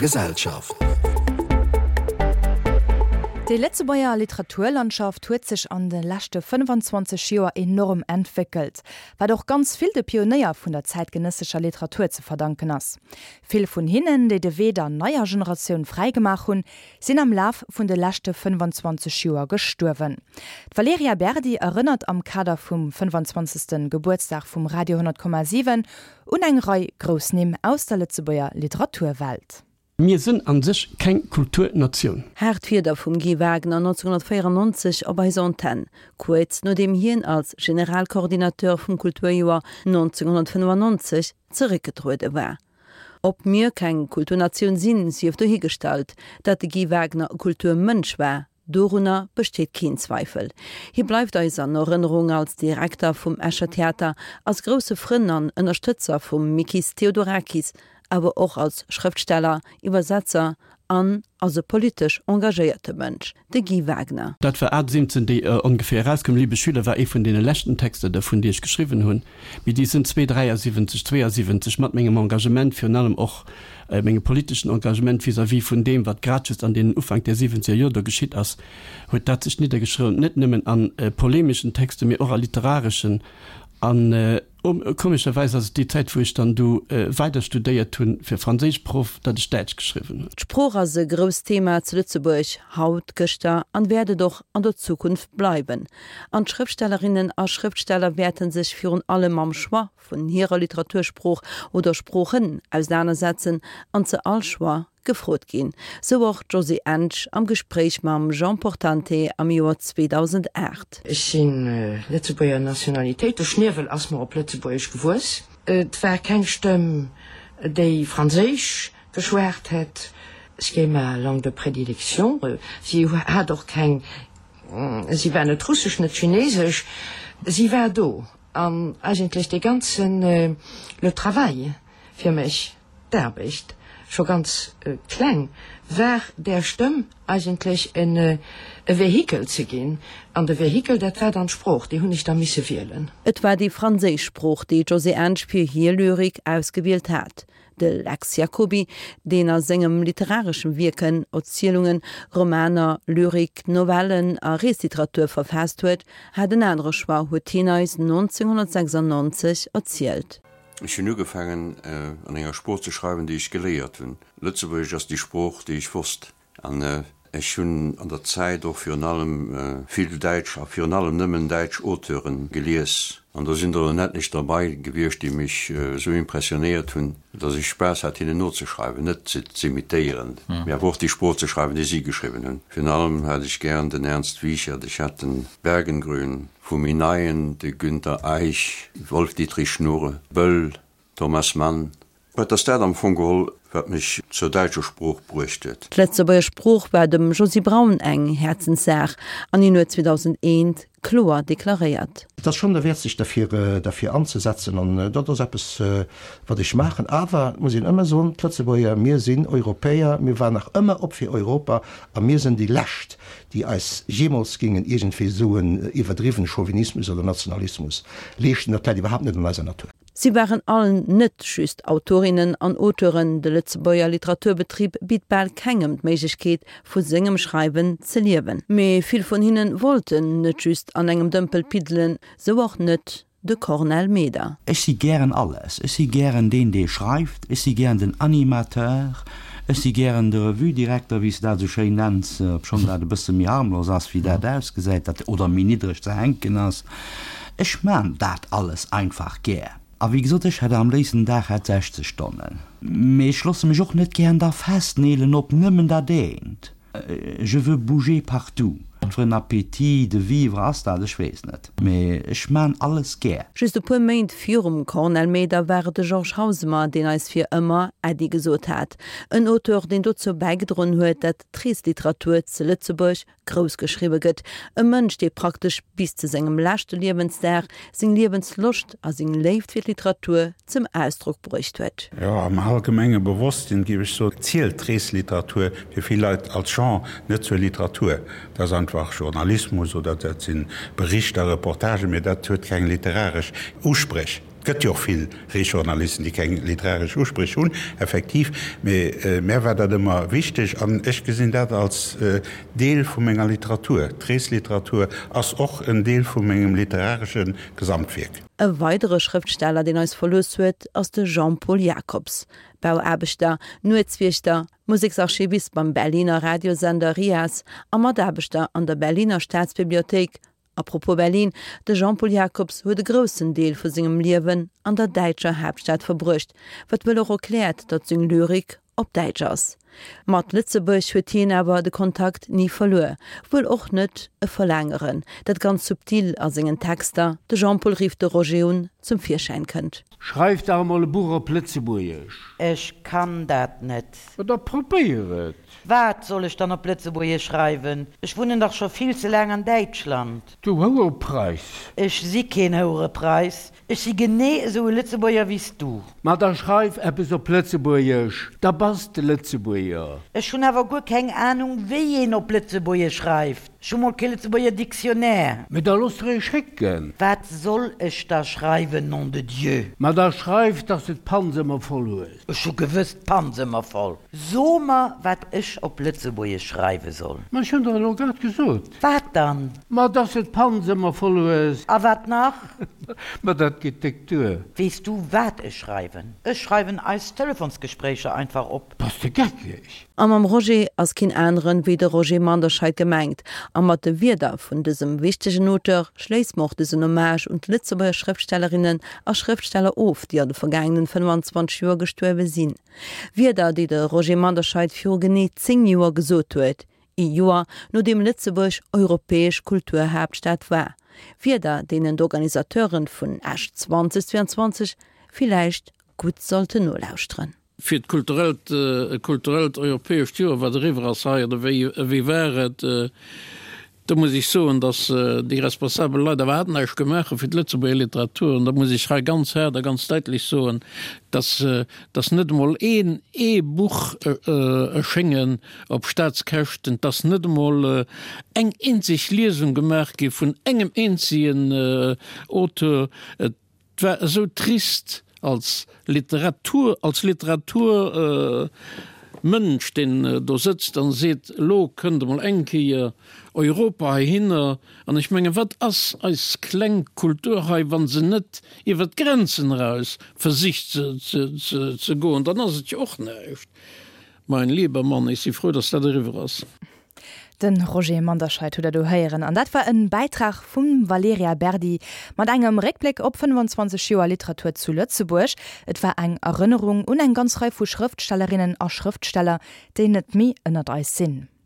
Gesellschaft. Déi Lëtzebuerger Literaturlandschaft huet sech an de leschte 25 Joer enorm entwéckelt, wat och ganz vill de Pionéier vun der zäitgenëssescher Literatur ze verdanken ass. Vill vun hinnen, déi de Wee der neier Generatioun fräigemaach hunn, sinn am Laf vun de leschte 25 Joer gestuerwen. D'Valerija Berdi erënnert am Kader vum 25. Gebuertsdag vum Radio 10,7 Un eng Rei grouss Nimm aus der Lëtzebuerger Literaturwelt. Mir sënn an sech keng Kulturnatioun. Haart Wierder vum Guy Wagner 1994 op eiser Antenn, kuerz nodeem hien als Generalcoordinateur vum Kulturjoer 1995 zeréckgetruede war. Ob mir keng Kulturnatioun sinn, sief dohigestallt. Dat de Guy Wagner e Kulturmënsch war, Dorunner besteet keen Zweifel. Hie bleift eis an Erënnerung als Direkter vum Escher Theater, als grousse Frënn an Ënnerstëtzer vum Mikis Theodorakis, awer och als Schrëftsteller, Iwwersetzer an als e politesch engagéierte Mënsch. De Guy Wagner. Dat war 78, déi ongeféier erauskoum. Liebe Schüler war ee vun deene leschten Texter dervun, déi ech geschriwwen hunn. Mee déi sënn 273, 72 mat mengem Engagement, virun allem och mengem politeschen Engagement vis-à-vis vun deem, wat grad just an deenen Ufank der siwwenzeger Jor do geschitt ass, huet dat sech niddergeschriwwen, net nëmmen a polemeschen Texten, mee och a literareschen. An komescherweis ass et déi Zäit, wou ech dann du weider studéiert hunn fir Franséischproff, datt ech Däitsch geschriwwen hunn. D'Sprooch ass e grousst Thema zu Lëtzebuerg, haut, gëschter an wäert et och an der Zukunft bleiwen. An d'Schrëftstellerinnen a Schrëftsteller wäerte sech virun allem mam Choix vun hirer Literatursprooch oder Sproochen ausenanersetzen an ze all Choix gefrot ginn. Sou och d'Josée Ensch am Gespréich mam Jean Portante am Joer 2008. Ech si Lëtzebuerger Nationalitéit, de Schniewel ass mer op Lëtzebuergesch gewuess. Et war keng Stëmm, déi Franséisch geschwat hätt, ce qui est ma langue de prédilection. Si hat och keng Si war net russesch, net chinesesch, si war do. An eigentlech dee ganzen, le travail fir mech, d'Aarbecht, scho ganz kleng, war där Stëmm eigentlech e Vehikel ze ginn. An de Vehikel, dat war dann d'Sprooch, déi hunn ech da misse wielen. Et war déi franséisch Sprooch, déi d'Josée Ensch fir hir Lyrik ausgewielt hat. De Lex Jacoby, deen a sengem literareschem Wierken Erzielungen, Romaner, Lyrik, Novellen a Reesliteratur verfaasst huet, hat en anere Choix, huet hien eis 1996 erzielt. Ech hunn ugefaangen an enger Sprooch ze schreiwen, déi ech geléiert hunn. Lëtzebuergesch ass déi Sprooch, déi ech wosst. An ech hunn an der Zäit och virun allem vill däitsch a virun allem nëmmen däitsch Auteure gelies. An do sinn der en etlech derbei gewiescht, déi mech esou impressionéiert hunn, datt ech Spaass hat, hinnen nozeschreiwen, net se z'imitéieren, mee awer och déi Sprooch ze schreiwen, déi si geschriwwen hunn. Virun allem hat ech gären den Ernst Wiechert, ech hat den Bergengrün, vu méi Neien de Günter Eich, Wolf-Dietrich Schnurre, Böll, Thomas Mann, Et ass dat am Fong geholl, wat mech zur däitscher Sprooch bruecht huet. D'Lëtzebuerger Sprooch war dem Josy Braun eng Häerzenssaach an hien huet 2001 kloer deklaréiert. Et ass schonn derwäert sech derfir derfir anzesetzen an dat ass eppes wat ech maachen. Awer et muss een ëmmer soen, d'Lëtzebuerger, mir sinn Europäer, mir waren nach ëmmer op fir Europa a mir sinn déi lescht, déi eis jeemools géingen iergendwéi esou en iwwerdriwwene Chauvinismus oder Nationalismus leeschten. Dat läit iwwerhaapt net an eiser Natur. Si waren all net just Autorinnen an Auteuren, de Lëtzebuerger Literaturbetrib bitt bal kengem d'Méiglechkeet, vu sengem Schreiwen ze liewen. Mee vill vun hinne wollten net just an engem Dëmpel piddelen, sou och net de Cornel Meder. Ech si gären alles. Ech si gären deen, dee schreift, ech si gären den Animateur, ech si gären de Revue-Direkter, wéi s de dat esou schéin nenns, obschonn dat e bësse méi harmlos ass, wéi dat ausgesäit, dat oder méi niddreg ze hänken ass. Ech maan daat alles einfach gär. A wéi gesot, ech hätt am léifsten den Dag hätt 60 Stonnen. Mee ech losse mech och net gären da festneelen op nëmmen dat eent. Je veux bouger partout. Wat fir en Appétit de vivre ass dat? Ech weess net. Mee ech maan alles gär. Just e puer Méint virum Cornel Meder war et de Georges Hausemer, deen eis fir ëmmer Äddi gesot hat. En Auteur, deen dozou bäigedroen huet, dat d'Reesliteratur ze Lëtzebuerg grouss geschriwwe gëtt, e Mënsch, dee praktesch bis zu sengem leschte Liewensdag seng Liewensloscht a seng Léift fir d'Literatur zum Ausdrock bruecht huet. Jo, am allgemenge Bewosstsinn, géif ech soen, zielt d'Reesliteratur fir vill Leit als Genre net zur Literatur. Dat ass einfach Journalismus oder dat si Berichter, Reportagen, mee dat huet keng literaresch Uspréch. Gëtt jo och vill Reesjournalisten, déi keng literaresch Uspréch hunn, effektiv, mee mär war dat ëmmer wichteg an ech gesinn dat als Deel vu menger Literatur. D'Reesliteratur ass och en Deel vu mengem literaresche Gesamtwierk. E weidere Schrëftsteller, deen eis verlooss huet, ass de Jean-Paul Jacobs, Bauaarbechter, Nuetswiechter, Museksarchivist beim Berliner Radiosender RIAS a Mataarbechter an der Berliner Staatsbibliothéik. A propos Berlin, de Jean-Paul Jacobs huet e groussen Deel vu sengem Liewen an der däitscher Haaptstad verbruecht, wat wuel och erkläert, datt seng Lyrik op Däitsch ass. Mat Lëtzebuerg huet hien awer de Kontakt ni verluer, wuel och net e Verlaangeren, dat ganz subtil a sengen Texter, de Jean-Paul rifft de Roger un, zum Virschäin kënnt. Schreif dach emol e Buch op Lëtzebuergesch! Ech kann dat net. Ma da probéier et! Wat soll ech dann op Lëtzebuergesch schreiwen? Ech wunnen dach scho vill ze laang an Däitschland. Du Houerepreiss! Ech si keen Houerepreiss. Ech si genee esou e Lëtzebuerger wéi s du. Ma da schreif eppes op Lëtzebuergesch, da bass de Lëtzebuerger. Ech hunn awer guer keng Anung, wéi een op Lëtzebuergesch schreift. Ech hu mol kee Lëtzebuerger Dictionnaire. Mee da looss der ee schécken. Wat soll ech da schreiwen, nom de Dieu? Ma da schreif, dass de d'Panz ëmmer voll hues. Ech hu gewëss d'Panz ëmmer voll. So mer, wat ech op Lëtzebuergesch schreiwe soll. Ma ech hunn der elo grad gesot. Wat dann? Ma dass de d'Panz ëmmer voll hues. A wat nach? Ma dat geet déck duer. Weess du, wat ech schreiwen? Ech schreiwen eis Telefonsgespréicher einfach op. Bass de geckeg? A mam Roger ass keen aneren wéi de Roger Manderscheid gemengt. A mat de Wierder vun dësem wichtegen Auteur schléisse mer och dësen Hommage un d'Lëtzebuerger Schrëftstellerinnen a Schrëftsteller of, déi an de vergaangenen 25 Joer gestuerwe sinn. Wierder, déi de Roger Manderscheid viru genee 10 Joer gesot huet, ee Joer nodeem Lëtzebuerg europäesch Kulturhaaptstad war. Wierder, deenen d'Organisateuren vun Esch 2022 villäicht gutt sollten nolauschteren. Fir d'kulturellt, e kulturellt europäescht Joer, wat eriwwer ass hei, oder wéi, wéi war et? Do muss ech soen, datt déi responsabel Leit awer näischt gemaach hu fir d'Lëtzebuerger Literatur. An da muss ech hei ganz haart a ganz däitlech soen, datt, datt net emol een, ee Buch erschéngen op Staatskäschten, datt net emol eng eenzeg Liesung gemaach gi vun engem eenzegen Auteur. Et war esou trist als Literatur, als Literaturmënsch, deen do sëtzt an seet, elo kënnt emol eng Kéier Europa heihinner. An ech mengen, wat ass eis kleng Kultur hei, wa se net iwwer d'Grenzen eraus versicht ze goen, dann ass et jo och näischt. Mein lieber Mann, ech si frou, dass dat eriwwer ass. De Roger Manderscheid hutt der do héieren an dat war en Bäitrag vum Valerija Berdi mat engem Réckbléck op 25 Joer Literatur zu Lëtzebuerg. Et war eng Erënnerung un eng ganz Rei vu Schrëftstellerinnen a Schrëftsteller, déi net méi ënnert eis sinn.